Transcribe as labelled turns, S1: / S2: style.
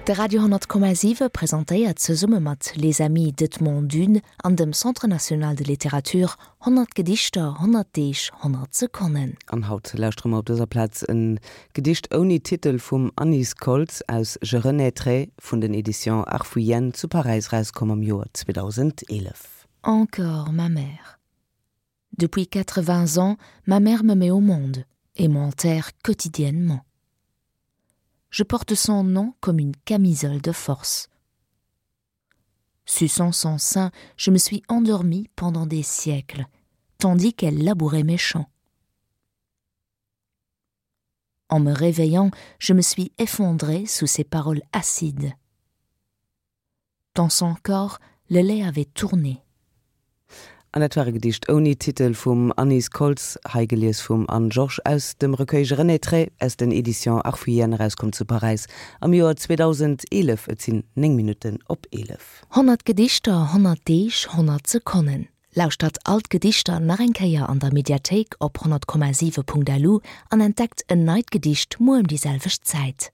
S1: De Radio 10,7 presentéiert zesumme mat Les Amis d'Edmond Dune an dem Centre national de littérature 100 Gedichter, 100 Deeg, 100 Sekonnen.
S2: An haut lauschtere mer op dëser Plaz e Gedicht ouni Titel vum Anise Koltz aus Je renaîtrai vun den Editions Arfouillenne zu Paräis erauskomm am Joer 2011.
S1: Encore ma mère. Depuis 80 ans, ma mère me met au monde et m'enterre quotidiennement. Je porte son nom comme une camisole de force. Suçant son sein, je me suis endormie pendant des siècles, tandis qu'elle labourait mes champs. En me réveillant, je me suis effondrée sous ses paroles acides. Dans son corps, le lait avait tourné.
S2: An dat war e Gedicht ouni Titel vum Anise Koltz, hei gelies vum Anne Georges aus dem Recueil Je renaîtrai aus den Editions Arfouillenne, erauskomm zu Paräis am Joer 2011. Et sinn 9 Minutten op 11.
S1: 100 Gedichter, 100 Deeg, 100 Sekonnen. Lauschtert all d'Gedichter nach eng Kéier an der Mediathéik op 100,7.lu an entdeckt en neit Gedicht muer ëm déi selwecht Zäit.